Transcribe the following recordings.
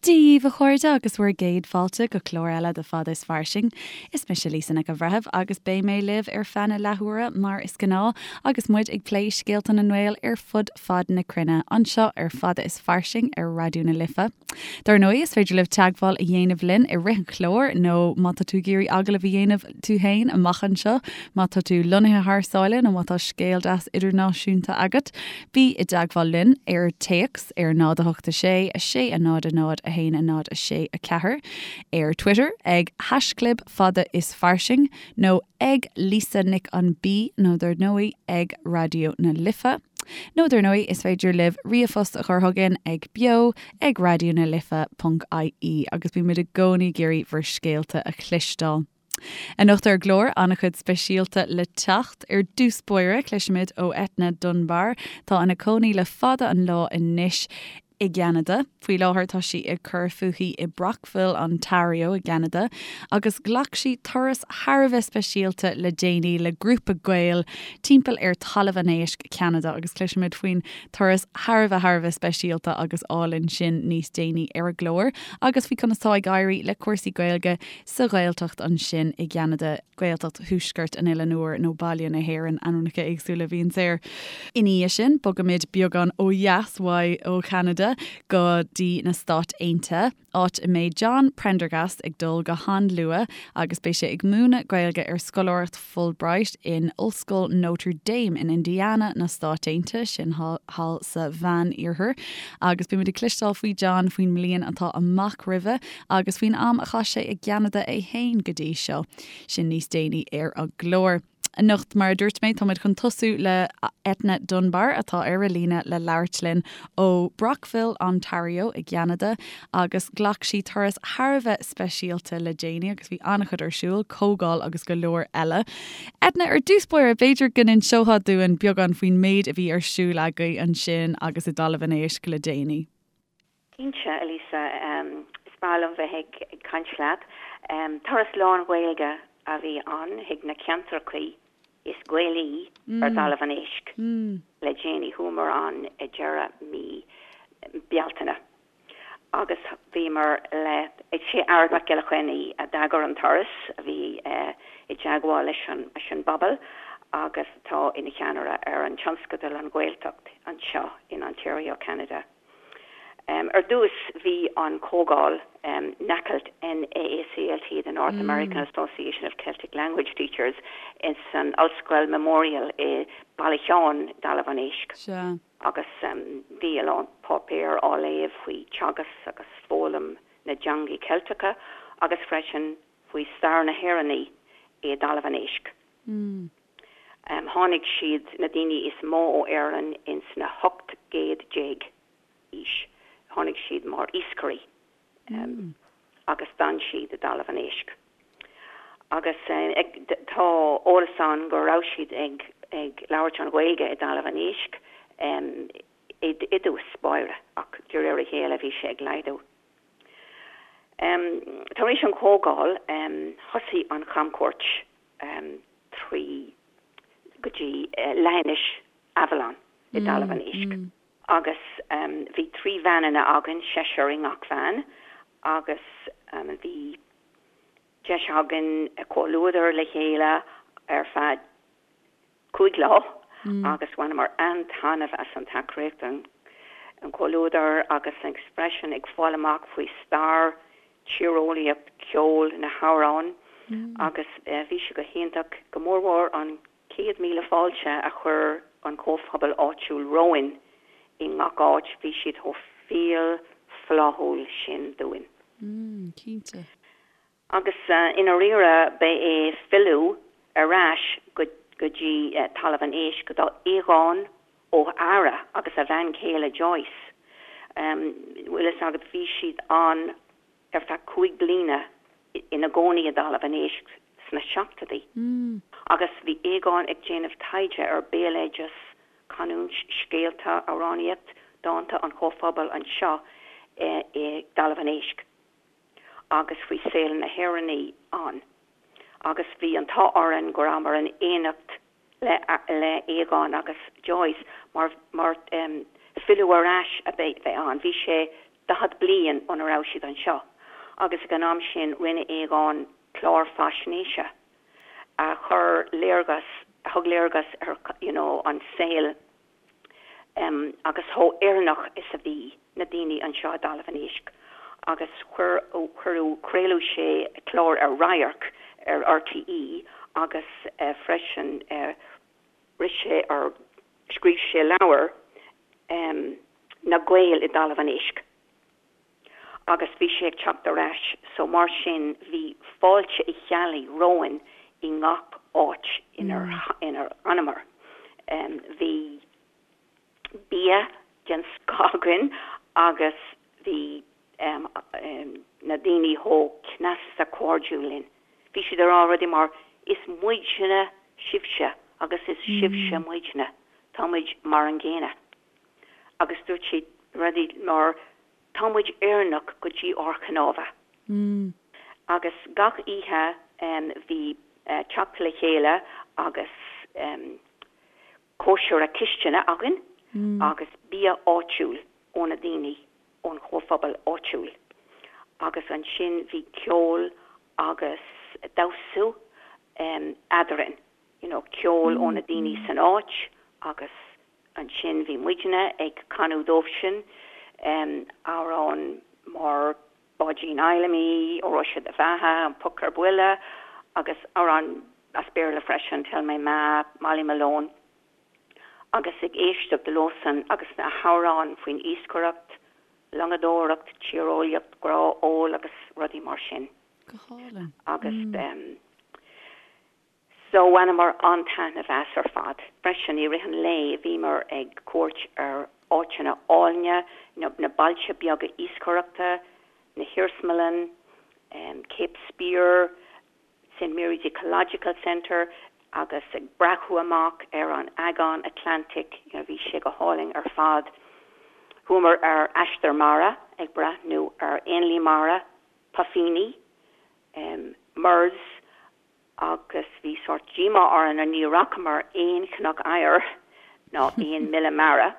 Dia dhaoibh a chairde agus bhur gcéad fáilte go clár eile de Fada is Fairsing. Is mise Lisa Nic an Bhreithimh agus beidh mé libh ar feadh na leathuaire mar is gnáth agus muid ag plé scéalta na nGael ar fud fad na cruinne anseo ar Fada is Fairsing ar Raidió na Life. Dar ndóigh is féidir libh teagmháil a dhéanamh linn i rith an chláir nó má tá tú ag iarraidh agallamh a dhéanamh tú féin amach anseo, má tá tú lonnaithe thar sáile nó má tá scéal deas idirnáisiúnta agat, Bí i dteagmháil linn ar téacs ar 0 8 6 6 0 0 1 0 6 4, ar Twitter ag haischlib fada is fairsing nó ag Lisa Nic an B nó dar ndóigh ag Raidió na Life. Nó dar ndóigh is féidir libh ríomhphost a chur chugainn ag beo ag raidió na life ponc ie agus bímid i gcónaí ag iarraidh bhur scéalta a chloisteáil. Anocht ar an gclár, an-chuid speisialta le teacht. Ar dtús báire, cloisfimid ó Eithne Dunbar, atá ina cónaí le fada an lá anois i gCeanada. Faoi láthair tá sí ag cur fúithi i Brockville, Ontario i gCeanada agus ghlac sí turas thar a bheith speisialta le déanaí le grúpa Gael timpeall ar Talamh an Éisc, Ceanada agus cloisfimid faoin turas thar a bheith thar a bheith speisialta agus álainn sin níos déanaí ar an gclár agus faoi conas tá ag éirí le cúrsaí Gaeilge sa Ghaeltacht ansin i gCeanada, Gaeltacht Thuaisceart an Oileáin Úir nó Baile na hÉireann, ainmneacha éagsúla a bhíonns air. Ina dhiaidh sin, bogaimid beagán ó dheas uaidh ó Cheanada go dtí na Stáit Aontaithe, áit a mbeidh John Prendergast ag dul go han-luath agus beidh sé ag múineadh Gaeilge ar scoláireacht Fulbright in Ollscoil Notre Dame in Indiana na Stáit Aontaithe, sin thall sa Mheán-Iarthar. Agus beimid ag cloisteáil faoi John faoin mbliain atá amach roimhe agus faoin am a chaith sé i gCeanada é féin go dtí seo. Sin níos déanaí ar an gclár. Anocht, mar a dúirt mé, táimid chun tosú le Eithne Dunbar atá ar an líne le labhairt linn ó Brockville, Ontario i gCeanada agus ghlac sí turas thar a bheith speisialta le déanaí agus bhí an-chuid ar siúl, comhdháil agus go leor eile. Eithne, ar dtús báire, b'fhéidir go n-inseofá dúinn beagán faoin méid a bhí ar siúl agaibh ansin agus i dTalamh an Éisc le déanaí. Cinnte, a Lisa. Is breá liom bheith ag caint leat. Turas lán-Ghaeilge a bhí ann chuig na ceantrachaí is Gaelaí ar dTalamh an Éisc le déanaí. Chuamar ann i deireadh mí Bealtaine agus bhíomar le, is é Ard Mac Giolla Chainnigh a d'eagair an turas, a bhí i dteagmháil leis an bpobal agus atá ina cheannaire ar an tionscadal An Ghaeltacht anseo in Ontario, Ceanada. Ar dtús bhí an comhdháil NAACLT, N-A-A-C-L-T, the North American Association of Celtic Language Teachers, ins an Ollscoil Memorial i Baile Sheáin, dTalamh an Éisc. Agus bhí a lán páipéar á léamh faoi teagasc agus foghlaim na dteangaí Ceilteacha agus freisin faoi stair na hÉireannaí i dTalamh an Éisc. Tháinig siad, na daoine is mó ó Éirinn ins na 18 gcéad aois, tháinig siad mar iascairí agus d'fhan siad i dTalamh an Éisc. Agus tá eolas ann go raibh siad ag ag labhairt an Ghaeilge i dTalamh an Éisc i dtús báire ach de réir a chéile bhí sé ag laghdú. Tar éis an chomhdháil thosaigh an chamchuairt trí go dtí leithinis Avalon i dTalamh an Éisc agus bhí 3 veaineanna againn, seisear i ngach veain agus bhí deis againn comhluadar le chéile ar feadh 5 lá agus bhaineamar an-taitneamh as an tacaíocht, an comhluadar agus freisin ag fáil amach faoi stair, tíreolaíocht, ceol, na hamhráin agus bhí sé go hiontach, go mórmhór an 100,000 fáilte a chuir an comhphobal áitiúil romhainn i ngach áit, bhí siad chomh fial fláithiúil sin dúinn. Cinnte. Agus i ndáiríre ba é filleadh ar ais go dtí Talamh an Éisc do Aogán Ó hEára agus a bhean chéile Joyce. Bhfuil fhios agat, bhí siad ann ar feadh 5 bliana ina gcónaí i dTalamh an Éisc sna seachtóidí agus bhí Aogán ag déanamh taighde ar béaloideas, canúint, scéalta, amhránaíocht, dánta an chomhphobail anseo i dTalamh an Éisc. agus faoi saol na hÉireannaí ann agus bhí an t-ádh orainn go rabhamar in éineacht le le Aogán agus Joyce mar mar filleadh ar ais a bheith ann. Bhí sé. 40 bliain óna raibh siad anseo agus ag an am sin rinne Aogán clár faisnéise a chuir léargas, a thug léargas ar you know an saol em agus chomh Éireannach is a bhí na daoine anseo i dTalamh an Éisc agus chuir, cuireadh, craoladh sé clár ar Radharc ar RTÉ agus eh freisin eh rith sé or scríobh sé leabhar em Na Gaeil i dTalamh an Éisc agus bhí sé ag teacht ar ais so mar sin bhí fáilte Uí Cheallaigh romhainn i ngach áit inar inar fhanamar. Em bhí bia den scoth againn agus bhí em na daoine chomh cneasta cairdiúil linn. Bhí siad ag rá rudaí mar 'is muidne sibhse agus is sibhse muidne, tá muid mar an gcéanna'. Agus dúirt siad rudaí mar 'tá muid Éireannach go dtí ár gcnámha'. Agus gach oíche bhí teacht le chéile agus cóisire cistine againn agus bia áitiúil ó na daoine ón chomhphobal áitiúil. Agus ansin bhí ceol agus damhsa eadrainn, you know ceol ó na daoine san áit agus Ansin bhí muidne ag canadh dóibhsean amhráin mar Báidín Fheidhlimí, Óró Sé do Bheatha, An Poc ar Buile agus amhráin as Béarla freisin, Tell My Ma, Molly Malone agus ag éisteacht leosan agus na hamhráin faoin iascaireacht, longadóireacht, tíreolaíocht, grá, ól agus rudaí mar sin. Go hálainn. Agus. So bhaineamar an-taitneamh as ar fad. Freisin i rith an lae bhíomar ag cuairt ar áiteanna áilne, na bailte beaga iascaireachta, na hiarsmalann, Cape Spear, St Mary's Ecological Centre agus ag breathnú amach ar an Aigéan Atlantic, you know bhí sé go hálainn ar fad. Chuamar ar aistear mara ag breathnú ar éanlaith mara, puifíní, murres agus bhí sórt díomá orainn ní fhacamar aon chnoc oighir ná aon míle mara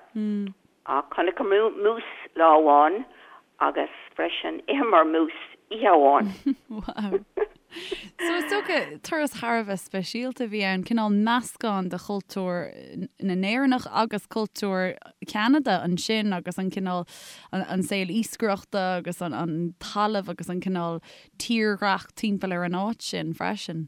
ach chonaiceamar mús lá amháin agus freisin d'itheamar mús oíche amháin. Wow. So is dócha turas thar a bheith speisialta a bhí ann, cineál meascán de chultúr na nÉireannach agus cultúr Cheanada ansin agus an cineál an saol iascaireachta agus an talamh agus an cineál tírdhreach timpeall ar an áit sin freisin.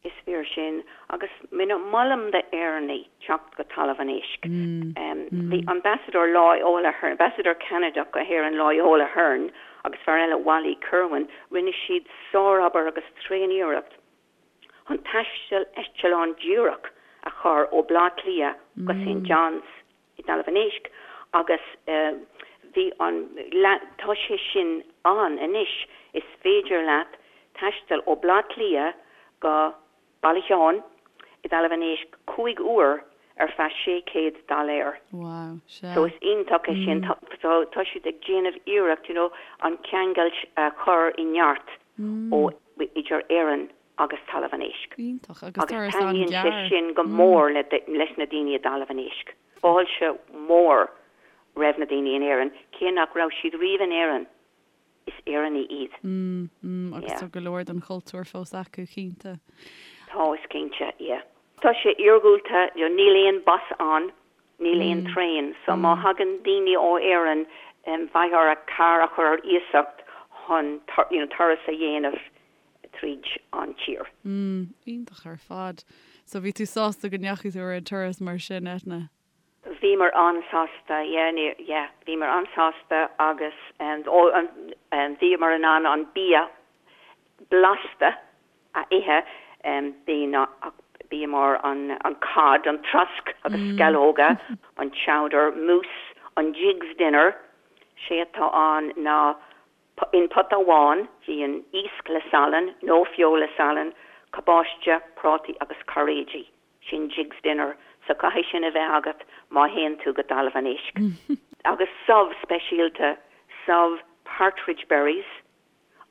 Is fíor sin, agus molaim d'Éireannaigh teacht go Talamh an Éisc. Bhí Ambasadóir Loyola Hearn, Ambasadóir Ceanadach go hÉirinn Loyola Hearn agus fear eile Wally Kirwan, rinne siad sárobair agus tréaniarracht chun taisteal eitleán díreach a chur ó Bleá Cliath go St John's. i dTalamh an Éisc agus bhí an, tá sé sin ann anois, is féidir leat taisteal ó Bleá Cliath go Baile Sheáin i dTalamh an Éisc 5 uair ar feadh 600 dollar. Wow, sea. So is iontach é sin, tá, tá siad ag déanamh iarracht, you know, an ceangailt a chur i neart ó, idir Éirinn agus Talamh an Éisc. Iontach, agus Agus turas taitníonn sé an-ghearr. sin go mór le leis na daoine i dTalamh an Éisc. Fáilte mhór roimh na daoine in Éirinn, cé nach raibh siad riamh in Éirinn, is Éireannaigh iad. Mm, mm, agus Yeah. tá go leor den chultúr fós acu, cinnte. Tá, is cinnte, yeah. Tá sé iargúlta, you know, níl aon bus ann, níl aon traein, so má thagann daoine ó Éirinn, beidh orthu carr a chur ar iasacht chun, you know, turas a dhéanamh tríd an tír. Mm, iontach ar fad. So bhí tú sásta go ndeachaigh tú ar an turas mar sin, Eithne? Bhíomar an-sásta, yeah, ní, yeah, bhíomar an-sásta agus oh, bhíomar in ann an bia blasta a ithe, bhí na, bia mar an, an cod, an trosc agus sceallóga, an chowder, mús, an Jiggs dinner, sé atá ann ná In pota amháin bíonn iasc le salann nó feoil le salann, cabáiste, prátaí agus cairéidí. Sin Jiggs dinner, so caithfidh sin a bheith agat má théann tú go Talamh an Éisc. Agus subh speisialta, subh partridge berries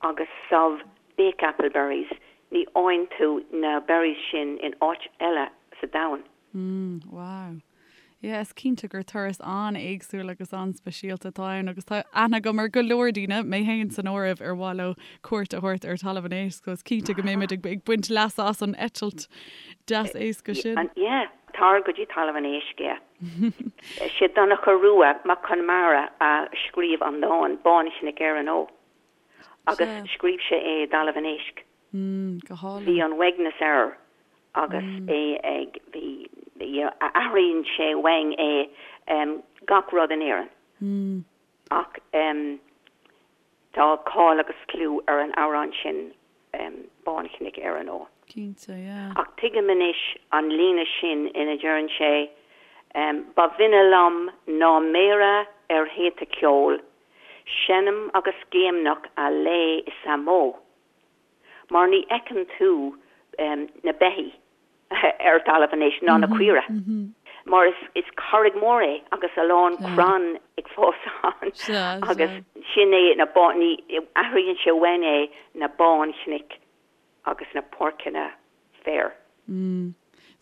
agus subh bakeapple berries, ní fhaigheann tú na berries sin in áit eile sa domhan. Mm, wow. Yeah, is cinnte gur turas an-éagsúil agus an-speisialta atá ann agus tá aithne agam ar go leor daoine, mé féin san áireamh, ar mhaith leo cuairt a thabhairt ar Talamh an Éisc, so is cinnte go mbeimid ag baint leasa as an eitilt deas éasca sin. Yeah, tar go dtí Talamh an Éisc, yeah. Sé Donncha Rua Mac Conmara a scríobh an dán, Bánchnoic Éireann Ó, agus scríobh sé é i dTalamh an Éisc. Go hálainn. Bhí an uaigneas air agus é ag, bhí, athraíonn sé uainn é gach rud in Éirinn. Ach tá cáil agus clú ar an amhrán sin Bánchnoic Éireann Ó. Cinnte, yeah. Ach tuigim anois an líne sin ina deireann sé Ba bhinne liom ná méara ar shéta ceoil, seinm agus géimneach a lao is a mbó. Mar ní fheiceann tú na beithígh ar talamh anois, ná na caoire, mar is carraig mór é agus a lán crann ag fás ann agus sin é na bá, ní, athraíonn sé uainn é na bánchnoic agus na páirceanna féir.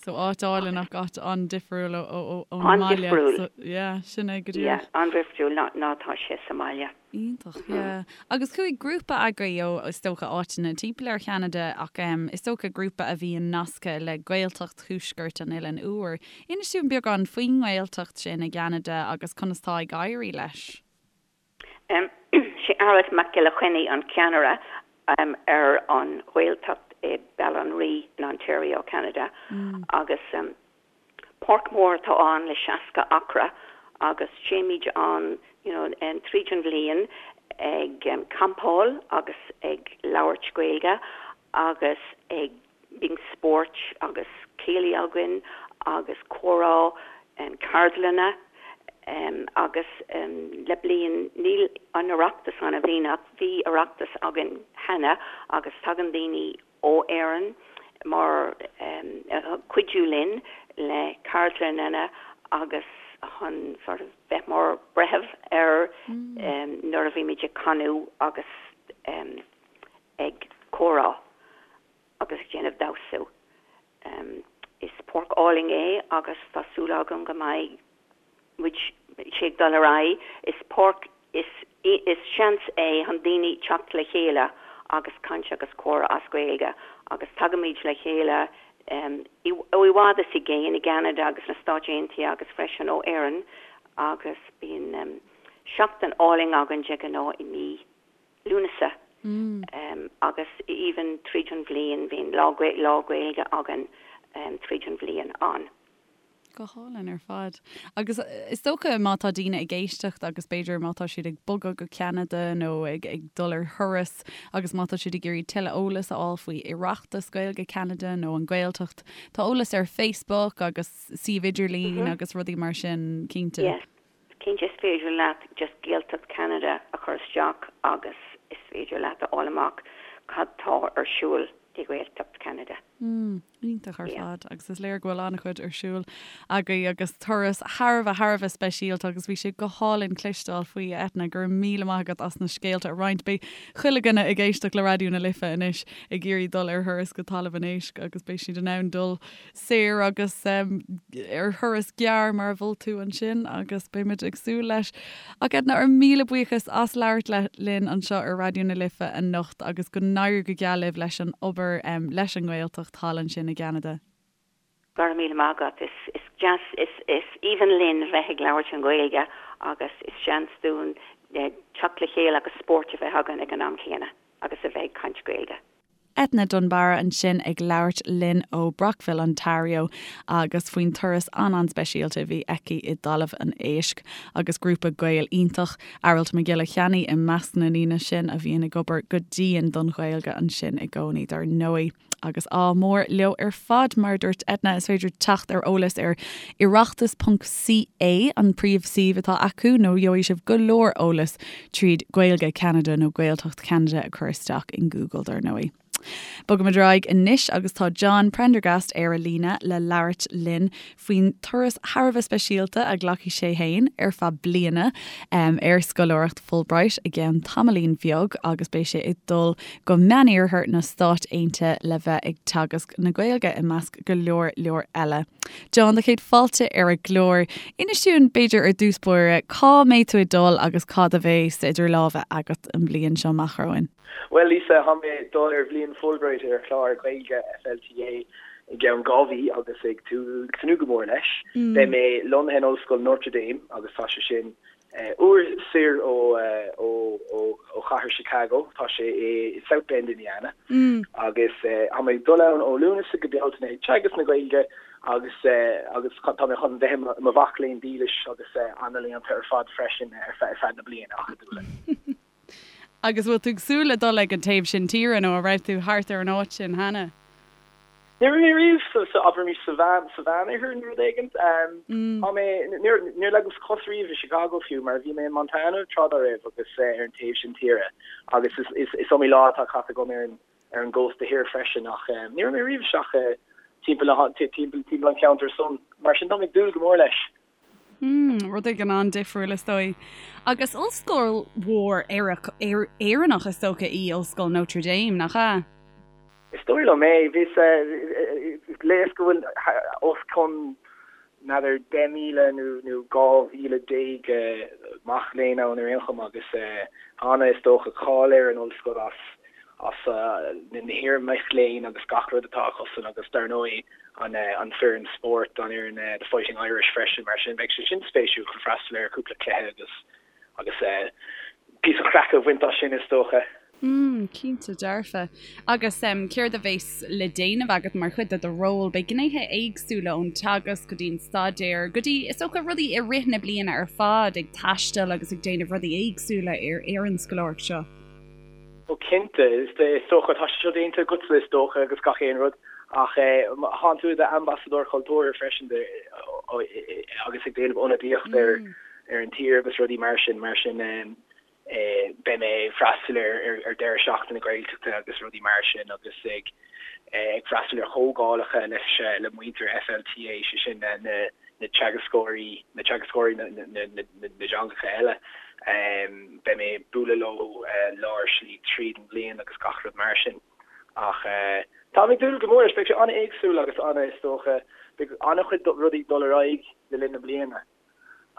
So áit álainn ach áit an-difriúil ón mbaile. An-difriúil. So yeah, sin é go díreach. Yeah, an-difriúil ná ná tá sé sa mbaile. Iontach, yeah. Agus chuaigh grúpa agaibh ó, is dócha, áiteanna timpeall ar Cheanada ach em is dócha grúpa a bhíonn nasctha le Gaeltacht Thuaisceart an Oileáin Úir. Inis dúinn beagán faoin nGaeltacht sin i gCeanada agus conas tá ag éirí leis. Sé Aralt Mac Giolla Chainnigh an ceannaire ar an Ghaeltacht i Béal an Rí in Ontario, Ceanada agus páirc mhór atá ann le 60 acra agus téimid ann you know tríd an bhliain ag campáil agus ag labhairt Gaeilge agus ag Bíonn spóirt agus céilí againn agus comhrá, ceardlanna agus le bliain, níl an Oireachtas ann i mbliana ach bhí Oireachtas againn cheana agus tagann daoine ó Éirinn mar cuidiú linn le ceardlanna agus chun sort of bheith mar breitheamh ar nuair a bhímid ag canadh agus ag comhrá. agus ag déanamh damhsa. Is páirc álainn é agus tá súil agam go mbeidh muid, sé ag dul ar aghaidh. Is páirc, is, is seans é chun daoine teacht le chéile agus caint agus comhrá as Gaeilge agus tagaimid le chéile ó i bhfad is i gcéin i gCeanada agus na Stáit Aontaithe agus freisin ó Éirinn agus bíonn seachtain álainn againn de ghnáth i mí Lúnasa agus even tríd an bhliain bíonn lá lá Gaeilge againn tríd an bhliain ann. Go hálainn ar fad. Agus is dócha má tá daoine ag éisteacht agus b'fhéidir má tá siad ag bogadh go Ceanada nó ag ag dul ar thuras agus má tá siad ag iarraidh tuilleadh eolas a fháil faoi Oireachtas Gaeilge Ceanada nó an Ghaeltacht, tá eolas ar Facebook agus suíomh idirlín agus rudaí mar sin, cinnte. Yes. Cinnte is féidir leat just Gaeltacht Ceanada a chur isteach agus is féidir leat a fháil amach cad tá ar siúl i Gaeltacht Ceanada. Mm, iontach ar fad agus is léir go bhfuil an-chuid ar siúl agaibh agus turas thar a bheith thar a bheith speisialta agus bhí sé go hálainn cloisteáil faoi a Eithne, go raibh míle maith agat as na scéalta a roinnt. Beidh chuile dhuine ag éisteacht le Raidió na Life anois ag iarraidh dul ar thuras go Talamh an Éisc agus beidh siad in ann dul saor agus ar thuras gearr mar a mhol tú ansin agus beimid ag súil leis. Ach Edna, ár míle buíochas as labhairt linn anseo ar Raidió na Life anocht agus go n-éirí go geal libh leis an obair leis an nGaeltacht thall ansin i gCeanada. Go raibh míle maith agat. Is deas, is aoibhinn linn bheith ag labhairt an Ghaeilge agus is seans dúinn teacht le chéile agus spórt a bheith againn ag an am chéanna agus a bheith ag caint Gaeilge. Eithne Dunbarra ansin ag labhairt linn ó Brockville, Ontario agus faoin turas an-an-speisialta a bhí aici i dTalamh an Éisc agus grúpa Gael iontach, Aralt Mac Giolla Cheannaigh i measc na ndaoine sin a bhíonn ag obair go dian don Ghaeilge ansin i gcónaí dar ndóigh. Agus ádh mór leo ar fad, mar a dúirt Eithne, is féidir teacht ar eolas ar oireachtas ponc CA, an príomhshuíomh atá acu, nó gheobhaidh sibh go leor eolas tríd Gaeilge Ceanada nó Gaeltacht Cheanada a chur isteach in Google dar ndóigh. Bogaimid ar aghaidh anois agus tá John Prendergast ar an líne le labhairt linn faoin turas thar a bheith speisialta a ghlacfaidh sé féin ar feadh bliana ar scoláireacht Fulbright i gceann tamaillín bheag agus beidh sé ag dul go Meániarthar na Stát Aontaithe le bheith ag teagasc na Gaeilge i measc go leor leor eile. John, do chéad fáilte ar an gclár. Inis dúinn, b'fhéidir ar dtús báire, cá mbeidh tú ag dul agus cad a bheas idir lámha agat an bhliain seo amach romhainn? Bhuel, Lisa, tá mé ag dul ar bhliain Fulbright ar chlár Gaeilge FLTA i gceann 2 mhí agus ag tnúth go mór leis. Beidh mé lonnaithe in Ollscoil Notre Dame agus tá sé sin uair soir ó ó chathair Chicago, tá sé i South Bend, Indiana. Agus tá mé ag dul ann ó Lúnasa go Bealtaine ag teagasc na Gaeilge agus agus tá mé chun bheith i mo mhac léinn dílis agus an-léannta ar fad freisin ar feadh na bliana acadúla. Agus bhfuil tú ag súil le dul ag an taobh sin tíre nó an raibh tú thart ar an áit sin cheana? Ní raibh mé riamh sa, sa, abraimis sa mheán, sa Mheánoirthear nó rud éigint. Tá mé, níor, níor leagas cos riamh i Chicago fiú mar bhí mé in Montana tráth dá raibh agus ar an taobh sin tíre agus is, is, is iomaí lá atá caite agam ar an, ar an gcósta thiar freisin ach ní raibh mé riamh isteach timpeall na, timpeall, timpeall an cheantair san. Mar sin tá mé ag dúil go mór leis. Mm, rud éigin an-difriúil is dóigh. Agus ollscoil mhór Éireannach is dócha í Ollscoil Notre Dame, nach ea? Is dóigh liom é. Bhíos, léas go bhfuil os cionn, n'fheadar, 10,000 nó 12,000 mac léinn ann ar aon chuma agus tá ana, is dócha, cáil ar an ollscoil as as na hiar-mhic léinn agus gach rud atá acusan agus dar ndóigh an an foireann spóirt, an fhoireann The Fighting Irish freisin, mar sin beidh sé sin spéisiúil chun freastal ar cúpla cluiche agus agus píosa craic a bhaint as sin is dócha. Mm, cinnte dearfa. Agus céard a bheas le déanamh agat mar chuid de do ról? Beidh gnéithe éagsúla ón teagasc go dtí an staidéar go dtí is dócha rudaí i rith na bliana ar fad, ag taisteal agus ag déanamh rudaí éagsúla ar ar an scoláireacht seo. Ó cinnte, is dócha, tá sé seo déanta agatsa is dócha agus gach aon rud ach thánn tú i d'ambasadóir cultúrtha freisin agus ag déanamh ionadaíocht ar ar an tír agus rudaí mar sin, mar sin beidh mé ag freastal ar ar deireadh seachtaine Gaeltachta agus rudaí mar sin agus ag ag freastal ar chomhdhálacha leis le muintir FLTA, sé sin na na teagascóirí, na teagascóirí na dteangacha eile. Beidh mé ag bualadh leo lár slí tríd an bhliain agus gach rud mar sin. Ach táim ag dúil go mór leis, beidh sé an-éagsúil agus an-, is dócha, beidh an-chuid rudaí ag dul ar aghaidh le linn na bliana.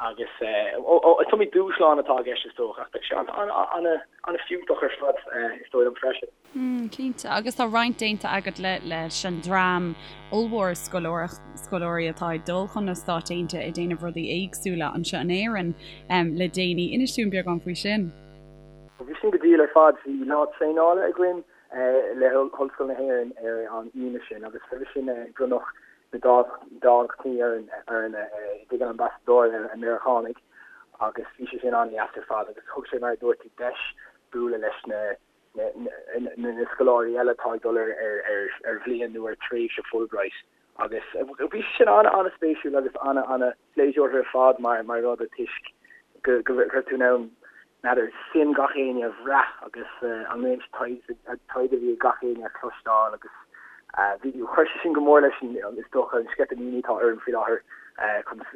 Agus is iomaí dúshlán atá i gceist is dócha, ach beidh sé an-fhiúntach ar fad is dóigh liom freisin. Cinnte, agus tá roinnt déanta agat leis an dream ollmhór scoláirí atá ag dul chun na Stáit Aontaithe ag déanamh rudaí éagsúla anseo in Éirinn le déanaí. Inis dúinn beagán faoi sin. Bhí sin go diail ar fad. Bhí lá traenála againn le hOllscoil na hÉireann ar an Aoine sin agus roimhe sin bronnadh na dámhachtainí orainn i dtigh an Ambasadóra Meiriceánaigh agus bhí sé sin an-deas ar fad agus thug sé, mar a dúirt tú, deis bualadh leis na na scoláirí eile atá ag dul ar bhliain nó ar thréimhse Fulbright agus bhí sé sin an-an-spéisiúil agus an-an-phléisiúrtha ar fad mar mar rud toisc go go raibh tú in ann n'fheadar suim gach éinne a bhrath agus an réimse taighde a bhí ag gach éinne a chloisteáil agus bhí chuir sé sin go mór leis an is dócha an sceitimíní atá orm faoi láthair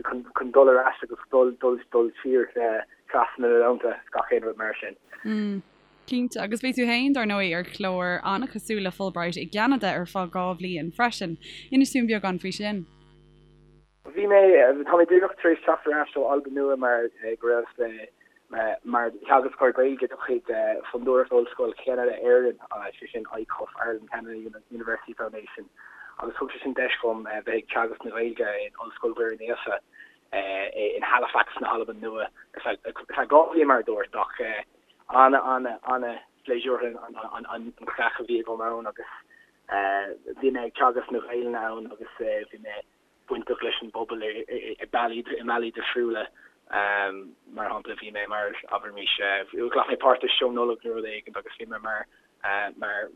chun chun dul ar ais agus dul dul dul siar trasna na dtonnta gach aon rud mar sin. Cinnte, agus bhí tú féin, dar ndóigh, ar chlár an-chosúil le Fulbright i gCeanada ar feadh 2 bhliain freisin. Inis dúinn beagán faoi sin. Bhí mé, tá mé díreach tar éis teacht ar ais ó Albain Nua mar go raibh mé mar theagascóir Gaeilge de chuid Fondúireacht Ollscoil Cheanada Éireann, sé sin ICUF, Ireland Canada University Foundation, agus thug sé sin deis dhom bheith ag teagasc na Gaeilge in Ollscoil Mhuire Naofa in Halifax na hAlban Nua ar feadh 2 bhliain mar a dúirt ach Ana, ana, ana phléisiúrtha an chraic a bhí agam ann agus bhí mé ag teagasc na Gaelainne ann agus bhí mé bainteach leis an bpobal i bealaí, i mbealaí difriúla. Mar shampla bhí mé mar, abraimis, ghlac mé páirt i seó Nollag nó rud éigin agus bhí mé mar mar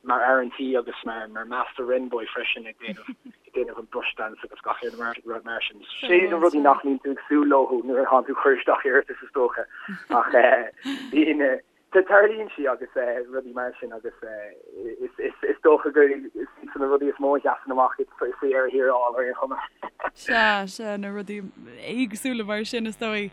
mar fhear an tí agus mar mar Master Wren Boy freisin ag déanamh ag déanamh an brush dance agus gach aon rud mar sin. Sin na rudaí nach mbíonn tú ag súil leo nuair atánn tú ag cur isteach iarratas is dócha ach bíonn. Tarlaíonn sí agus rudaí mar sin agus is dócha gur iad na rudaí is mó a sheasann amach faoi dheireadh thiar thall ar aon chuma. Sea, sea, na rudaí éagsúla mar sin is dóigh.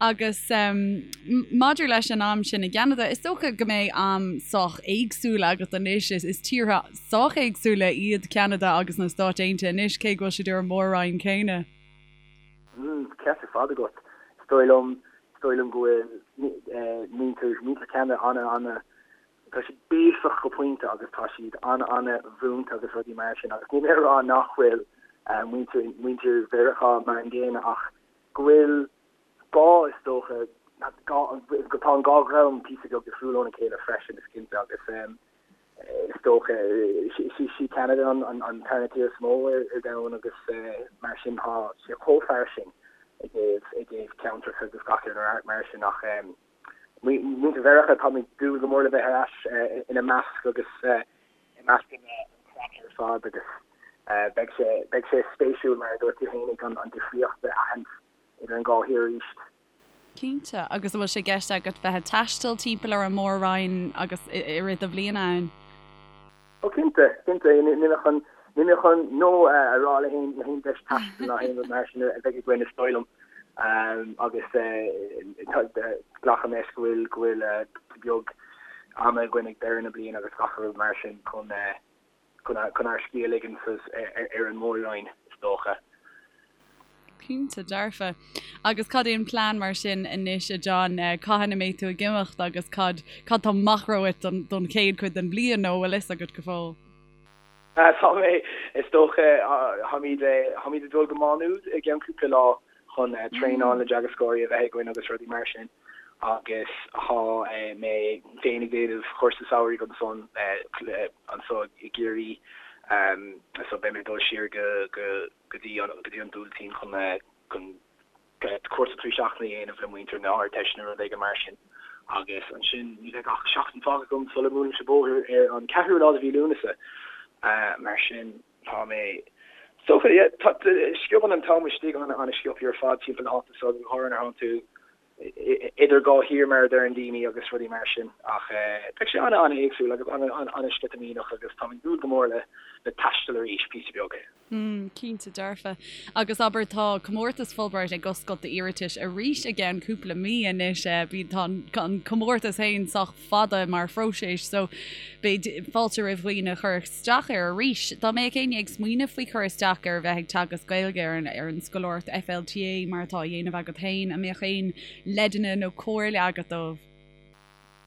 Agus maidir leis an am sin i gCeanada, is dócha go mbeidh am sách éagsúil agat anois. Is tíortha sách éagsúla iad Ceanada agus na Stáit Aontaithe anois, cé go bhfuil siad ar an mór-roinn céanna. Ceart ar fad agat. Is dóigh liom Is dóigh liom go bhfuil muintir, muintir Cheanada ana, ana, tá siad béasach go pointe agus tá siad ana, ana mhúinte agus rudaí mar sin agus níl mé ag rá nach bhfuil muintir, muintir Mheiriceá mar an gcéanna ach go bhfuil gá is dócha, gá, tá an dhá dhream píosa beag difriúil óna chéile freisin is cinnte agus Is dócha, sí Ceanada an tarna tír is mó ar domhan agus mar sin tá sé chomh fairsing i dtaobh i dtaobh ceantracha agus gach aon rud mar sin ach muintir Mheiriceá tá mé ag dúil go mór le bheith ar ais ina measc agus i measc an chraic ar fad agus beidh sé beidh sé spéisiúil mar a dúirt tú fhéinig an difríocht a aithint idir an dhá thír arís. Cinnte. Agus an bhfuil sé i gceist agat bheith ag taisteal timpeall ar an Mór-Roinn agus i rith do bhliana ann? Ó cinnte, cinnte. Níl mé chun, níl mé chun no a rá le haon, le haon deis taistil ná haon rud mar sin a bheidh againn is dóigh liom. Agus glacaim leis go bhfuil, go bhfuil beag ama againn ag deireadh na bliana agus gach rud mar sin chun, chun ár scíth a ligean ar an Mór-Roinn, is dócha. Cinnte, dearfa. Agus cad é an plean mar sin anois, a John? Cathain a mbeidh tú ag imeacht agus cad cad tá amach romhat don chéad chuid den bhliain nó an bhfuil fhios agat go fóill? Tá mé, is dócha, táimid táimid ag dul go Má Nuad i gceann cúpla lá chun traenáil na dteagascóirí a bheith againn agus rudaí mar sin agus tá mé féin ag déanamh cúrsa samhraidh ansan anso i gCiarraí so beidh mé ag dul siar go go go dtí an go dtí an Buailtín chun chun cúrsa 3 seachtaine a dhéanamh le muintir na hArdteiste nó rud éigin mar sin agus ansin ní bheidh ach seachtain fágtha agam sula mbuailimse bóthar ar an 4ú lá de mhí Lúnasa mar sin Tá mé. Is dócha, yeah, tá, sciobann an t-am istigh an-sciobtha ar fad timpeall na háite so, go háirithe nuair atánn tú idir dhá thír mar a deireann daoine agus rudaí mar sin. Ach beidh sé an-an-éagsúil agus an-an-sceitimíneach agus táim ag dúil go mór le le taisteal arís píosa beag. Mm, cinnte dearfa. Agus abair tá comórtas Fulbright ag oscailt d'iarratais arís i gceann cúpla mí anois. Bíonn tá an comórtas féin sách fada mar phróiseas so beidh fáilte roimh dhaoine cur isteach air arís. Dá mbeadh éinne ag smaoineamh faoi chur isteach ar bheith ag teagasc Gaeilge ar an ar an scoláireacht FLTA mar atá á dhéanamh agat féin, an mbeadh aon leideanna nó comhairle agat dóibh?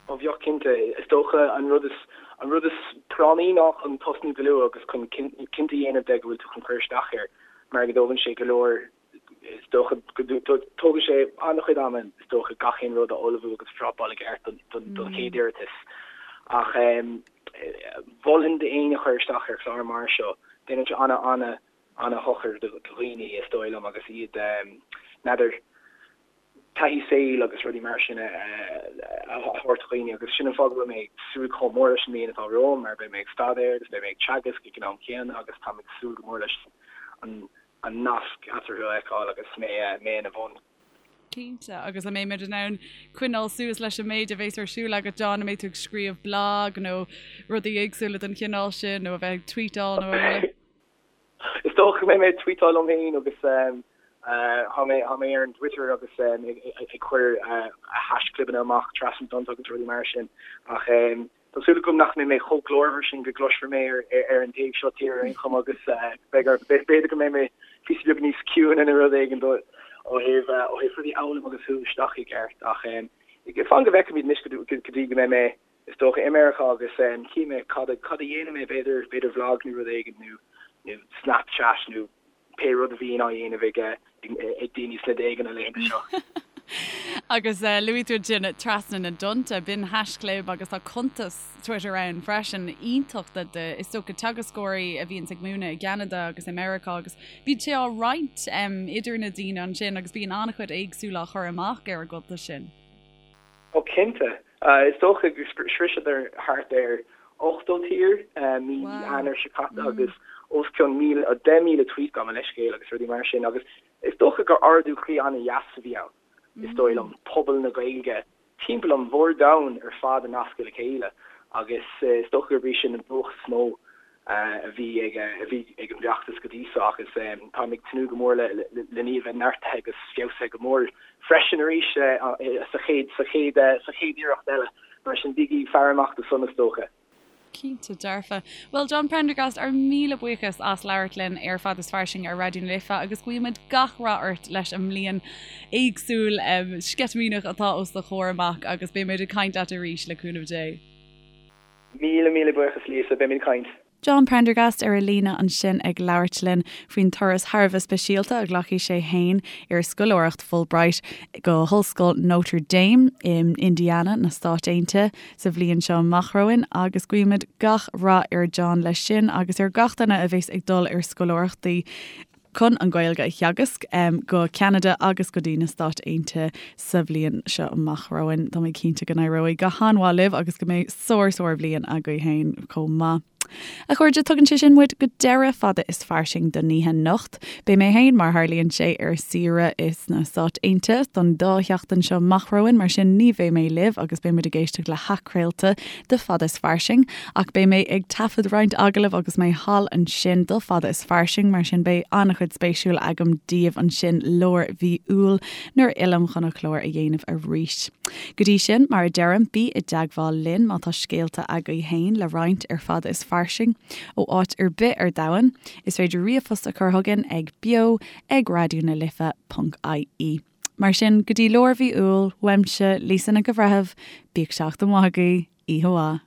Ó bheadh cinnte. Is dócha an rud is an rud is práinní ná chun tosnú go luath agus chun cinnte a dhéanamh de go bhfuil tú chun cur isteach air mar go dtógann sé go leor Is dócha go dtógann sé an-chuid ama, is dócha, gach aon rud a ullmhú agus a phrapáil i gceart don chéad iarratas. Ach mholfainn d'éinne cur isteach ar chlár mar seo. Déanann sé an-, an-shochar do dhaoine, is dóigh liom, agus iad, n'fheadar, taithí saoil agus rudaí mar sin a thabhairt do dhaoine agus sin an fáth go bhfuil mé ag súil chomh mór leis an mbliain atá romham mar beidh mé ag staidéar agus beidh mé ag teagasc ag an am céanna agus táim ag súil go mór leis an an nasc eatarthu a fheiceáil agus mé mé ina bhun. Cinnte, agus an mbeimid in ann coinneáil suas leis an méid a bhéas ar siúl agat, John, an mbeidh tú ag scríobh blag nó rudaí éagsúla den chineál sin nó a bheith ag tweetáil nó araile? Is dócha go mbeidh mé ag tweetáil liom féin agus tá mé tá mé ar an Twitter agus ag cur haischlibeanna amach trasna na dtonnta agus rudaí mar sin ach Tá súil agam nach mbeidh mé chomh glórmhar sin go gcloisfear mé ar an taobh seo tíre ar aon chuma agus b'fhéidir go mbeidh mé píosa beag níos ciúine nó rud éigin ó thaobh ó thaobh rudaí a fhoghlaim agus a shú isteach i gceart ach fan go bhfeicfimid anois go dtí go mbeidh mé is dócha i Meiriceá agus chífidh mé cad a cad a dhéanfaidh mé b'fhéidir b'fhéidir vlog nó rud éigin nó nó Snapchat nó pé rud a bhíonn á dhéanamh ag ag daoine sna déaga na laethanta seo. Agus luaigh tú ansin Trasna na dTonnta, b'in haischlib agus tá cuntas Twitter ann freisin, iontach do, do, is dócha, teagascóirí a bhíonns ag múineadh i gCeanada agus i Meiriceá agus bíonn sé á roinnt idir na daoine ansin agus bíonn an-chuid éagsúil á chur amach ar an gcuntas sin. Ó cinnte. Is dócha gur shroiseadar thart ar 80 tír mí Eanáir seo caite agus os cionn 1,000, 10,000 tweet gabh mo leithscéal agus rudaí mar sin agus is dócha gur ardú croí an-dheas a bhí ann, is dóigh liom, pobal na Gaeilge. timpeall an mhór-domhain ar fad a nascadh le chéile agus is dócha gurb í sin an buacht is mó a bhí ag a bhí ag an bhfeachtas go dtí seo agus táim ag tnúth go mór le len í a bheith neartaithe agus feabhsaithe go mór freisin arís sa chéad sa chéad sa chéad iarracht eile. Mar sin bígí ag faire amach dó san is dócha. Cinnte dearfa. Bhuel, John Prendergast, ár míle buíochas as labhairt linn ar Fada is Fairsing ar Raidió na Life agus guímid gach rath ort leis an mbliain éagsúil sceitimíneach atá os do chomhair amach agus beimid ag caint leat arís le cúnamh Dé. Míle míle buíochas Lisa, beimid ag caint. John Prendergast ar an líne ansin ag labhairt linn faoin turas thar a bheith speisialta a ghlacfaidh sé féin ar scoláireacht Fulbright go hOllscoil Notre Dame in Indiana na Stáit Aontaithe sa bhliain seo amach romhainn agus guímid gach rath ar John leis sin agus ar gach duine a bheas ag dul ar scoláireachtaí chun an Ghaeilge a theagasc go Ceanada agus go dtí na Stáit Aontaithe sa bhliain seo amach romhainn. Tá mé cinnte go n-éireoidh go han-mhaith libh agus go mbeidh sár-sár-bhliain agaibh féin chomh maith. A chairde, tugann sé sin muid go deireadh Fada is Fairsing don oíche anocht. Beidh mé féin, mar tharlaíonn sé, ar saoire sna Stáit Aontaithe don dá sheachtain seo amach romhainn, mar sin ní bheidh mé libh agus beidh muid ag éisteacht le hathchraolta de Fada is Fairsing, ach beidh mé ag taifead roinnt agallamh agus mé thall ansin do Fada is Fairsing, mar sin beidh an-chuid spéisiúil agam daoibh ansin lár mhí Iúil nuair a fhillim chun an clár a dhéanamh arís. Go dtí sin, mar a deirim, bí i dteagmháil linn má tá scéalta agaibh féin le roinnt ar Fada is Fairsing ó áit ar bith ar domhan. Is féidir ríomhphost a chur chugainn ag beo ag raidió na life ponc ie. Mar sin, go dtí lár mhí Iúil, uaimse, Lisa Nic an Bhreithimh, bíodh seachtain mhaith agaibh, oíche mhaith.